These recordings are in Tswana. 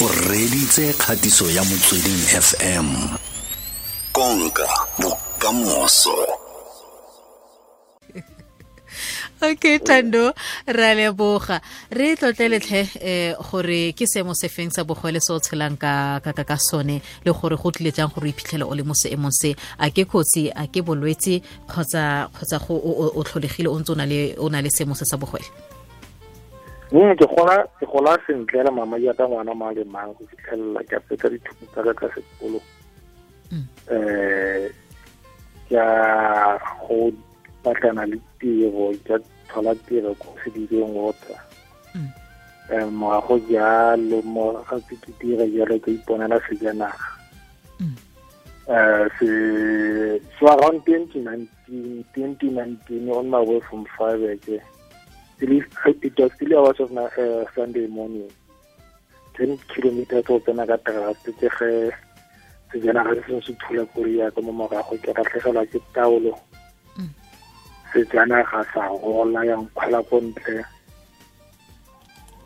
O reditse kgatiso ya Motsweding FM. Konka bokamoso. Okay, Thando, ra leboga. Re tlotleletlhe gore ke seemo se feng sa bogole se o tshelang ka sone, le gore go tlile jang gore o iphitlhele o le mo seemong se. A ke kotsi, a ke bolwetse, kgotsa go o tlholegile o ntse o na le seemo se sa bogole? Ke gola sentle le mama jaaka ngwana mang le mang go fitlhelela ke fetsa dithuto tsa ka tsa sekolo. Ke a go batlana le tiro, ke thola tiro ko Sedibeng Water. Morago jalo, mo ga ke dira jalo, ke iponela sejanaga. Se so around 2019, on my way from Freiburg, it was still hours of Sunday morning, 10 kilometers go tsena ka trust, ke ge sejanaga se sengwe se thula koloi ya ka mo morago. Ke latlhegelwa ke taolo, sejanaga sa gola, ya nkgwela ko ntle.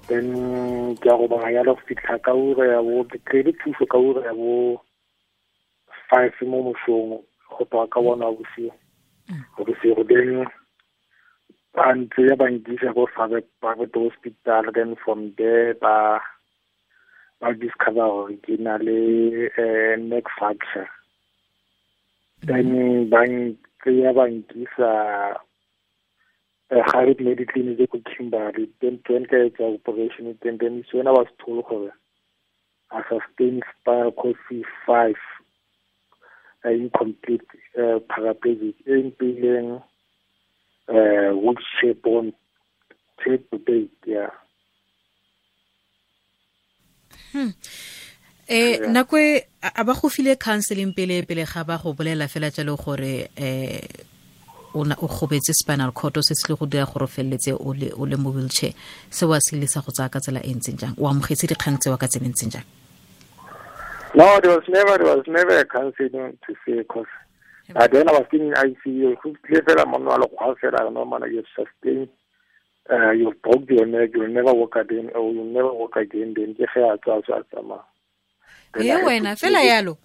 Then ke a go bona yalo go fitlha ka ura ya bo, ke kry-ile thuso ka ura ya bo 5 mo mosong, go tloga ka bona bosigo bosigo. Then ba ntse ya ba nkisa ko private hospital. Then from there ba discover gore ke na le neck fracture. Then ba ntseya ba nkisa Gerrit Mediclinic ko Kimberley. Then ka etsa operation. Then is when I was told gore I sustained spinal cord C5 incomplete paraplegic, e mpileng wheelchair bound till to date, yeah. Nako e a ba go file counseling pele ga ba go bolela fela jalo gore o gobetse spinal cord, se se le go dira gore o feleletse o le mo wheelchair, se wa se ile sa go tsaya ka tsela e ntseng jang? O amogetse dikgang tsewa ka tsela e ntseng jang? No, there was never a counseling to say, because then I was still in ICU. Go tlile fela monna wa lekgwa fela, "No man, you've sustained, you've broke your neck, you'll never walk again, or you'll never walk again." Then ke ge a tswa, a tsamaya. E wena fela yalo?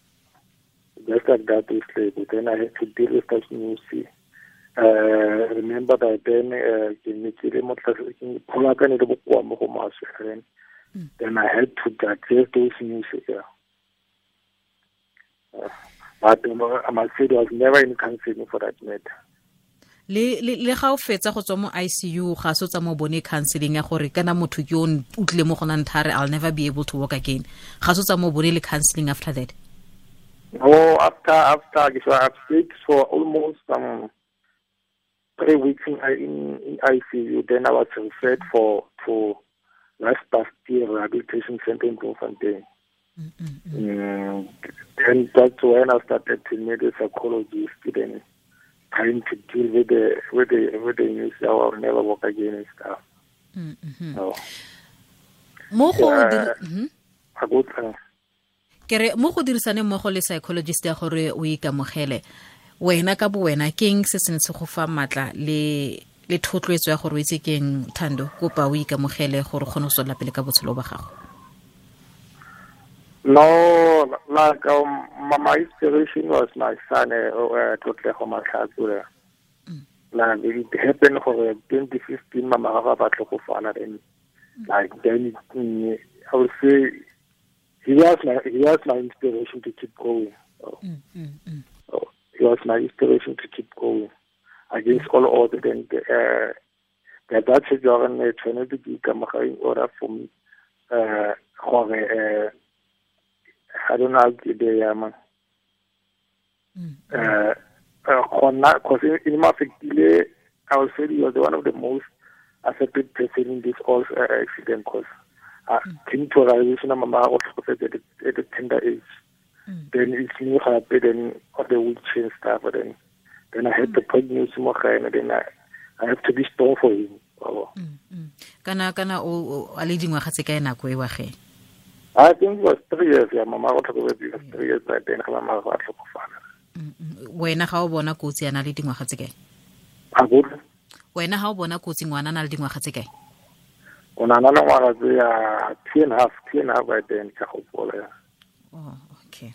Just like that is like. Then I had to deal with that news. Remember that then ke ne ke le mo tlase, ke phola ka ne le bokoa mo go maswe. Then I had to digest those news, yeah. But I must say there was never any counseling for that matter. Le ga o fetsa go tswa mo ICU, ga se tsa mo bone counseling ya gore kana motho ke o tlile mo go nang thare, "I'll never be able to walk again"? Ga se tsa mo bone le counseling after that? No, after, so I've stayed for almost 3 weeks in ICU. Then I was referred for to Last Rehabilitation Center in Bloemfontein. Then that's when I started to meet a psychologist, then trying to deal with the news that I will never walk again and stuff. So, Mo go Ke re mo go dirisane mmogo le psychologist ya gore o ikamogele wena ka bo wena, keng se se ne se go fa matla le thotloetso ya gore o itse keng, Thando, kopa o ikamogele gore o kgone go tswelela pele ka botshelo ba gago? No, like my inspiration was my son, Tlotlego Matlhatso. Like it happened for 2015, mama ga ba tlhokofala. Then like then it, I would say he was my inspiration to keep going. So, so he was my inspiration to keep going against all odds. Then that tshwetso ya gore tshwanetse ke ikamogela in order for me gore I don't know how ke be ya man gona, because in my affectile, I would say he was one of the most affected person in this all accident, because came to a realization mama o tlhokofetse at the tender age. Then it's me gape then on the wheelchair and stuff. Then I had to pregnancy mo gae, and then I have to be strong for him. Oh. Kana o a le dingwaga tse kae nako e wa ge? I think it was 3 years, yeah. Mama o tlhokofetse, it was 3 years by then ga mama a tlhokofala. Wena ga o bona kotsi, a na le dingwaga tse kae? A go Wena ga o bona kotsi, ngwana a na le dingwaga tse kae? O na na le ngwaga tse ya 2.5, 2.5 by then ka gopola ya. Oh, okay.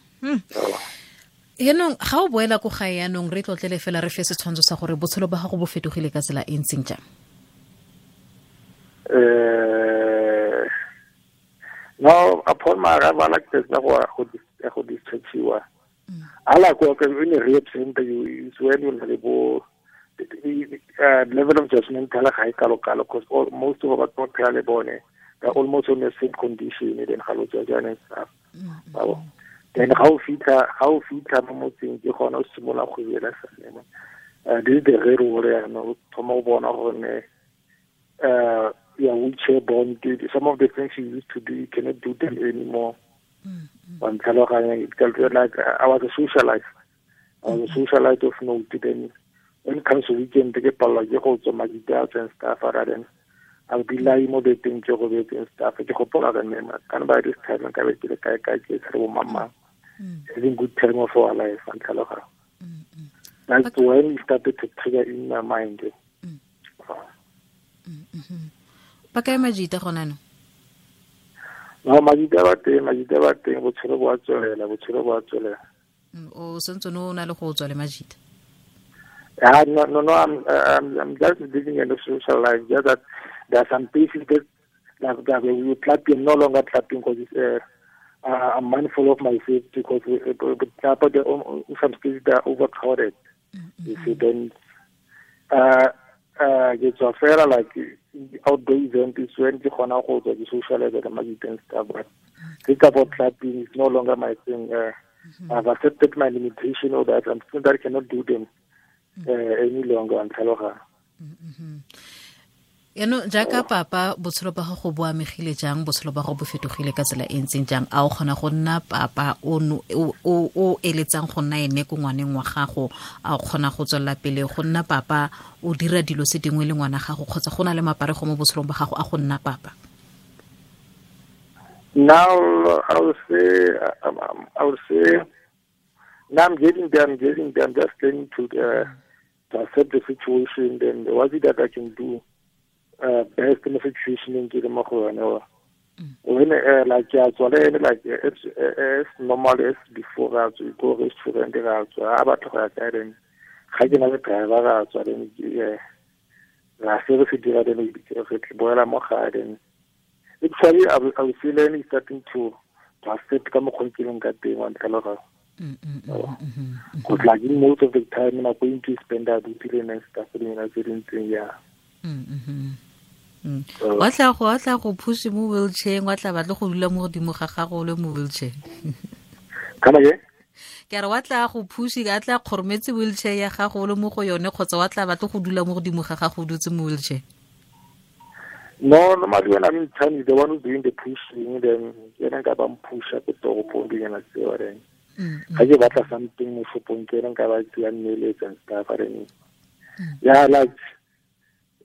Yaanong ga o boela ko gae yaanong re tlotlele fela re fe setshwantsho sa gore botshelo ba gago bo fetogile ka tsela e ntseng jang? No, upon my arrival like this go go dischargiwa. Ala go ke in a rehab center you is when you le bo level of judgment ga e kalo kalo because all most of our batho ba le bone they're almost in the same condition then ga lo judge and stuff. Then ga o fitlha mo motseng ke gona o simolola go buela sane. This is the real world ya no thoma o bona gore yeah, wheelchair bound, some of the things you used to do, you cannot do them anymore. Like I was a socialite. I was a socialite of note. Then when it comes to weekend, they get and stuff. Then I'll be lying more than and stuff. And by this time, I having good time of our life. That's when it started to trigger in my mind. Ba kae majita gona no? No, majita ba teng, botshelo bo a tswelela, O sentse no na le go tswa le majita? No, I'm just living in the social life. Just that there are some places that we clapping, no longer clapping because it's, I'm mindful of my safety because some places that are overcrowded. You see, then it's a fair like outdoor event is when the gona go tswa di socialize le majita and stuff, but think about clapping is no longer my thing. I've accepted my limitation or that I'm still that I cannot do them any longer and tlhaloga. Yaanong jaaka papa botshelo ba gago bo amegile jang, botshelo ba gago bo fetogile ka tsela e ntseng jang? A o kgona go nna papa o eletsang go nna ene ko ngwaneng wa gago? A o kgona go tswelela pele go nna papa o dira dilo se dingwe le ngwana gago, kgotsa go na le maparego mo botshelong ba gago a go nna papa? Now I would say now I'm getting there. I'm just learning to accept the situation. Then what is it that I can do best in the situation in ke mo go yone? When like like it's normal as before ra tswa go restaurant ra tswa a batla go ya kae then ga ke na le driver ra tswa then ra se re se dira then re boela mo gae then actually I was feeling starting to accept ka mokgwa ke leng ka teng wa ntlhaloga. Because like most of the time I'm going to spend that and stuff in yeah. Wa tla go push mo wheelchair, wa tla batla go dula mo godimo ga gago le mo wheelchair. Kana ke? Ke re wa tla go push ka tla kgorometse wheelchair ya gago le mo go yone, kgotsa wa tla batla go dula mo godimo ga gago dutse mo wheelchair? No, normally when I'm in town, the one who's doing the pushing, then yena nka ba mpusha ko toropong dinyana tseo then. Ga ke batla something mo shopong ke nka ba tseya mmeletsa and stuff then. Yeah,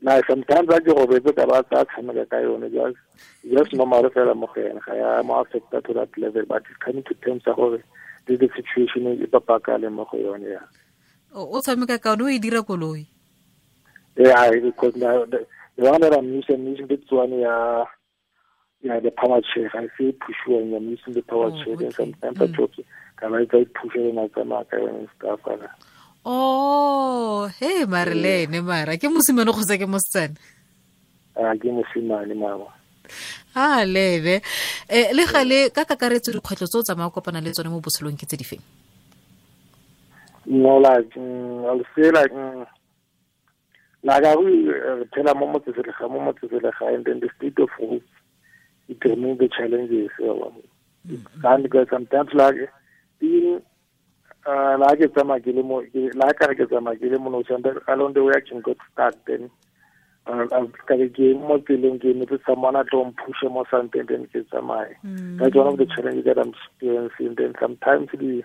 like sometimes I go robetse ka ba tsa tshameka ka yone, just normal fela mo go yena, ga ya mo affecta to that level, but it's coming to terms tsa gore this is the situation e papa le mo go yone ya. O tshameka ka yone o e dira koloi? Yeah, because now the one that I'm using this one, yeah, the power chair. I see push when I'm using the power chair, and sometimes I talk, can I push it and I stuff. Oh, hey, Marlene, mara ke mosimane kgotsa ke mosetsana? Ke mosimane mama. Ah, lebe. Le gale ka kakaretso dikgwetlho tse o tsamaya kopana le tsone mo botshelong ke tse di feng? No, like I'll say like like I will tell mo motseselegae, and then the state of roots it remove the challenges. And because sometimes like even like along the way I can get stuck then someone at home push or something then get that's one of the challenges that I'm experiencing. Then sometimes the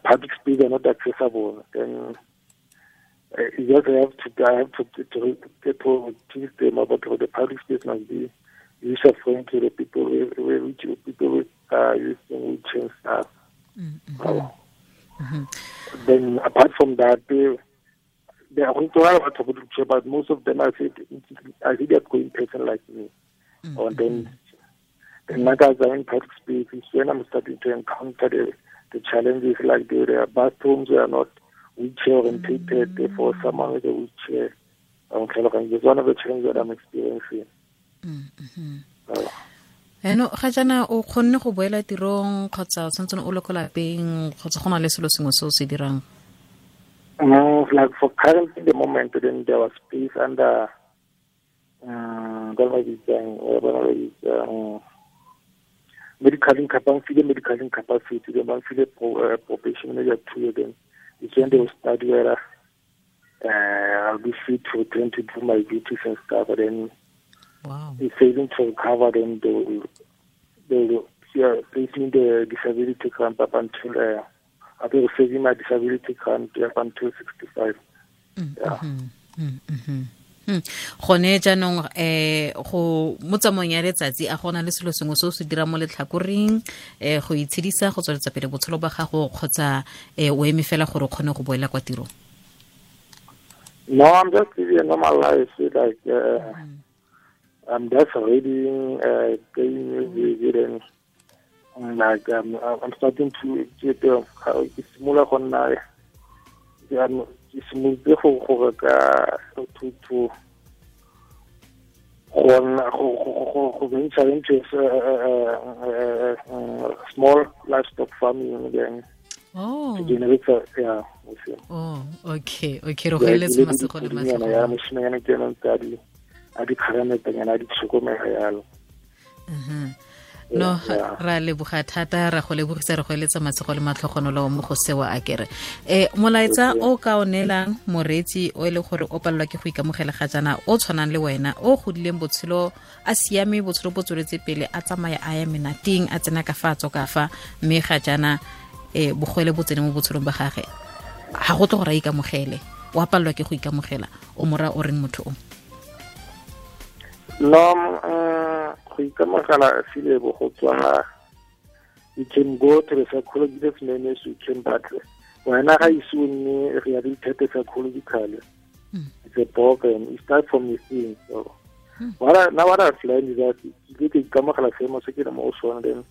public space are not accessible. Then you just have to teach them about how the public space must be user friendly to the people with people using wheelchair and stuff. Then apart from that, the They are going to have, but most of them I see they are going person like me. Or then like as I'm in public spaces, when I'm starting to encounter the challenges, like the bathrooms were not wheelchair orientated, therefore someone with a wheelchair. It's one of the challenges that I'm experiencing. Eno ga jana o khonne go boela tirong kgotsa o santse o le ko lapeng kgotsa go na le selo sengwe se o se dirang? No, like for currently the moment, then there was space under medical incapacity, the monthly probation maybe 2 years. Then it's when they will start where I'll be free to return to do my duties and stuff. But then, wow, if failing to recover, then they will place me in the disability grant up until I'll be receiving my disability grant up until 65. Yeah. Gone jaanong go mo tsamaong ya letsatsi a gona le selo sengwe se o se dira mo letlhakoreng go itshedisa go tsweletsa pele botshelo ba gago kgotsa o eme fela gore o kgone go boela kwa tirong? No, I'm just living a normal life. Like I'm just reading, playing music, and like I'm starting to get similar on now. Ke simolotse go reka to go venture into small livestock farming again. Oh. To generate, yeah. Oh, okay. Okay, re go eletsa masego le matlhogo. Ya moshimanyana ke ena ntse a di kgarametanyana a di tlhokomela yalo. No, ra leboga thata, ra go lebogisa, re go eletsa masego le matlhogonolo mo go sewa a kere. Molaetsa o ka o neelang moreetsi o e le gore o palelwa ke go ikamogela ga jaana, o tshwanang le wena, o godileng botshelo a siame, botshelo bo tsweletse pele, a tsamaya a ya menateng, a tsena ka fa a tswa ka fa, mme ga jaana bogwele bo tsene mo botshelong ba gage, ga go tle gore a ikamogele, o a palelwa ke go ikamogela, o mora o reng motho o? No, go ikamogela filebo go tswa, you can go to the psychologist manage, you can, but wena ga ise o nne rehabilitated psychologically, it's a problem. It starts from within. So what I've learned is that ke ke ikamogela seemo se ke le mo go sone, then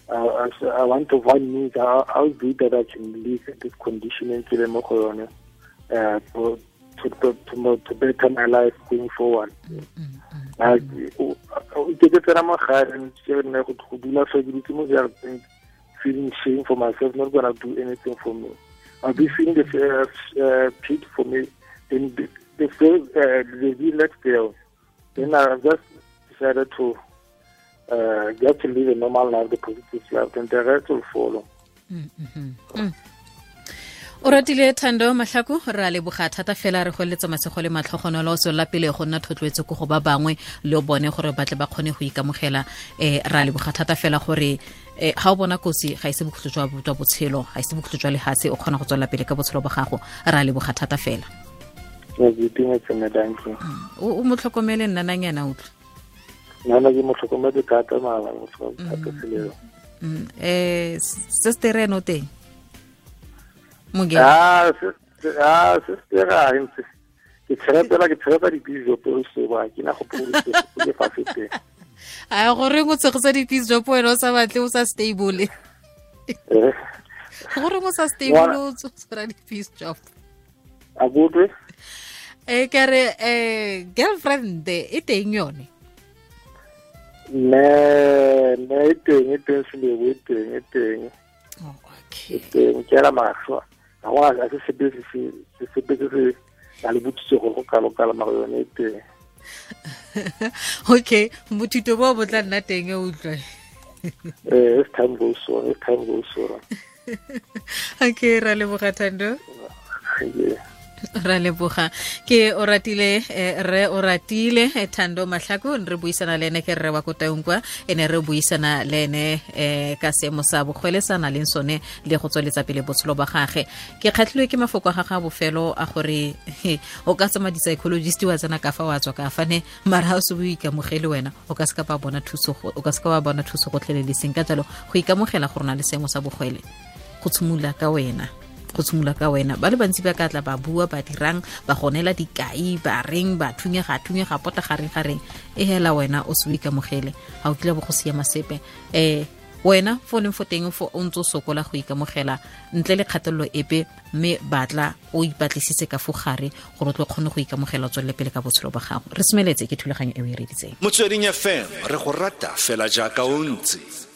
I want to find means how do that I can live in this condition and ke le mo go yone, to better my life going forward. Ke tsena mo gae ke nne go dula fa ke dutse mo jarateng, feeling shame for myself, not gonna do anything for me. I'll be feeling the pity for me. Then the next day, then I just decided to get to live a normal life, the positive life, and the rest will follow. O ratile Thando Mahlako, ra leboga thata fela, re go eletsa masego le matlhogonolo, o tswelela pele go nna thotloetso ko go ba bangwe le bone gore ba tle ba kgone go ikamogela. Ra leboga thata fela gore ga o bona kotsi ga ise bokhutlo jwa botshelo, ga ise bokhutlo jwa lehatshe, o kgona go tswelela pele ka botshelo ba gago. Ra leboga thata fela. O mo tlhokomele nnananyana utlwe. Nna ke mo tlhokometse thata mara mo tlhokometse thata seleo. Sister eno teng? Sister a ntse ke tshepa di-peace job se ba ke na go pholosa ke fa fete. A gore go tshegetsa di-peace job wena o sa batle, o sa stable. Gore o sa stable o tshwara di-peace job. A botwe? Ke re girlfriend e teng yone. Ne e teng selebo, e teng. Oh, okay. E teng ke la mašwa. Ga go a se sepe se a le botsitse go go kalo-kalo mara yone e teng. Okay, bothito bo bo tla nna teng e utlwe. As time goes on. Okay, ra leboga Thando. Yeah. Ra leboga. Ke o ratile re o ratile Thando Mahlako, re buisana le ene ke rre wa ko Taung kwa, ene re buisana le ene ka seemo sa bogwele sa na leng sone le go tsweletsa pele botshelo ba gage. Ke kgatlhilwe ke mafoko a gagwe a bofelo a gore o ka tsama di-psychologist wa tsena ka fa wa tswa ka fa ne, mara ha o se o ikamogele wena o ka se ka ba bona thuso, o ka se ka wa bona thuso gotlhelele seng. Ka jalo go ikamogela gore o na le seemo sa bogwele go tshimolola ka wena. Go tshimolola ka wena, ba le bantsi ba ka tla ba bua, ba dirang, ba gonela dikai, ba reng, ba thunyega thunyega pota gareng gareng, e hela wena o se o ikamogele, ga o kile bo go siama sepe. Wena fo leng fo teng fo o ntse o sokola go ikamogela ntle le kgatelelo epe, mme batla o ipatlisitse ka fo gare gore o tlo kgone go ikamogela, o tswelele pele ka botshelo ba gago. Re semeletse ke thulaganyo e o e reditseng. Motsweding FM, re go rata fela jaaka o ntse.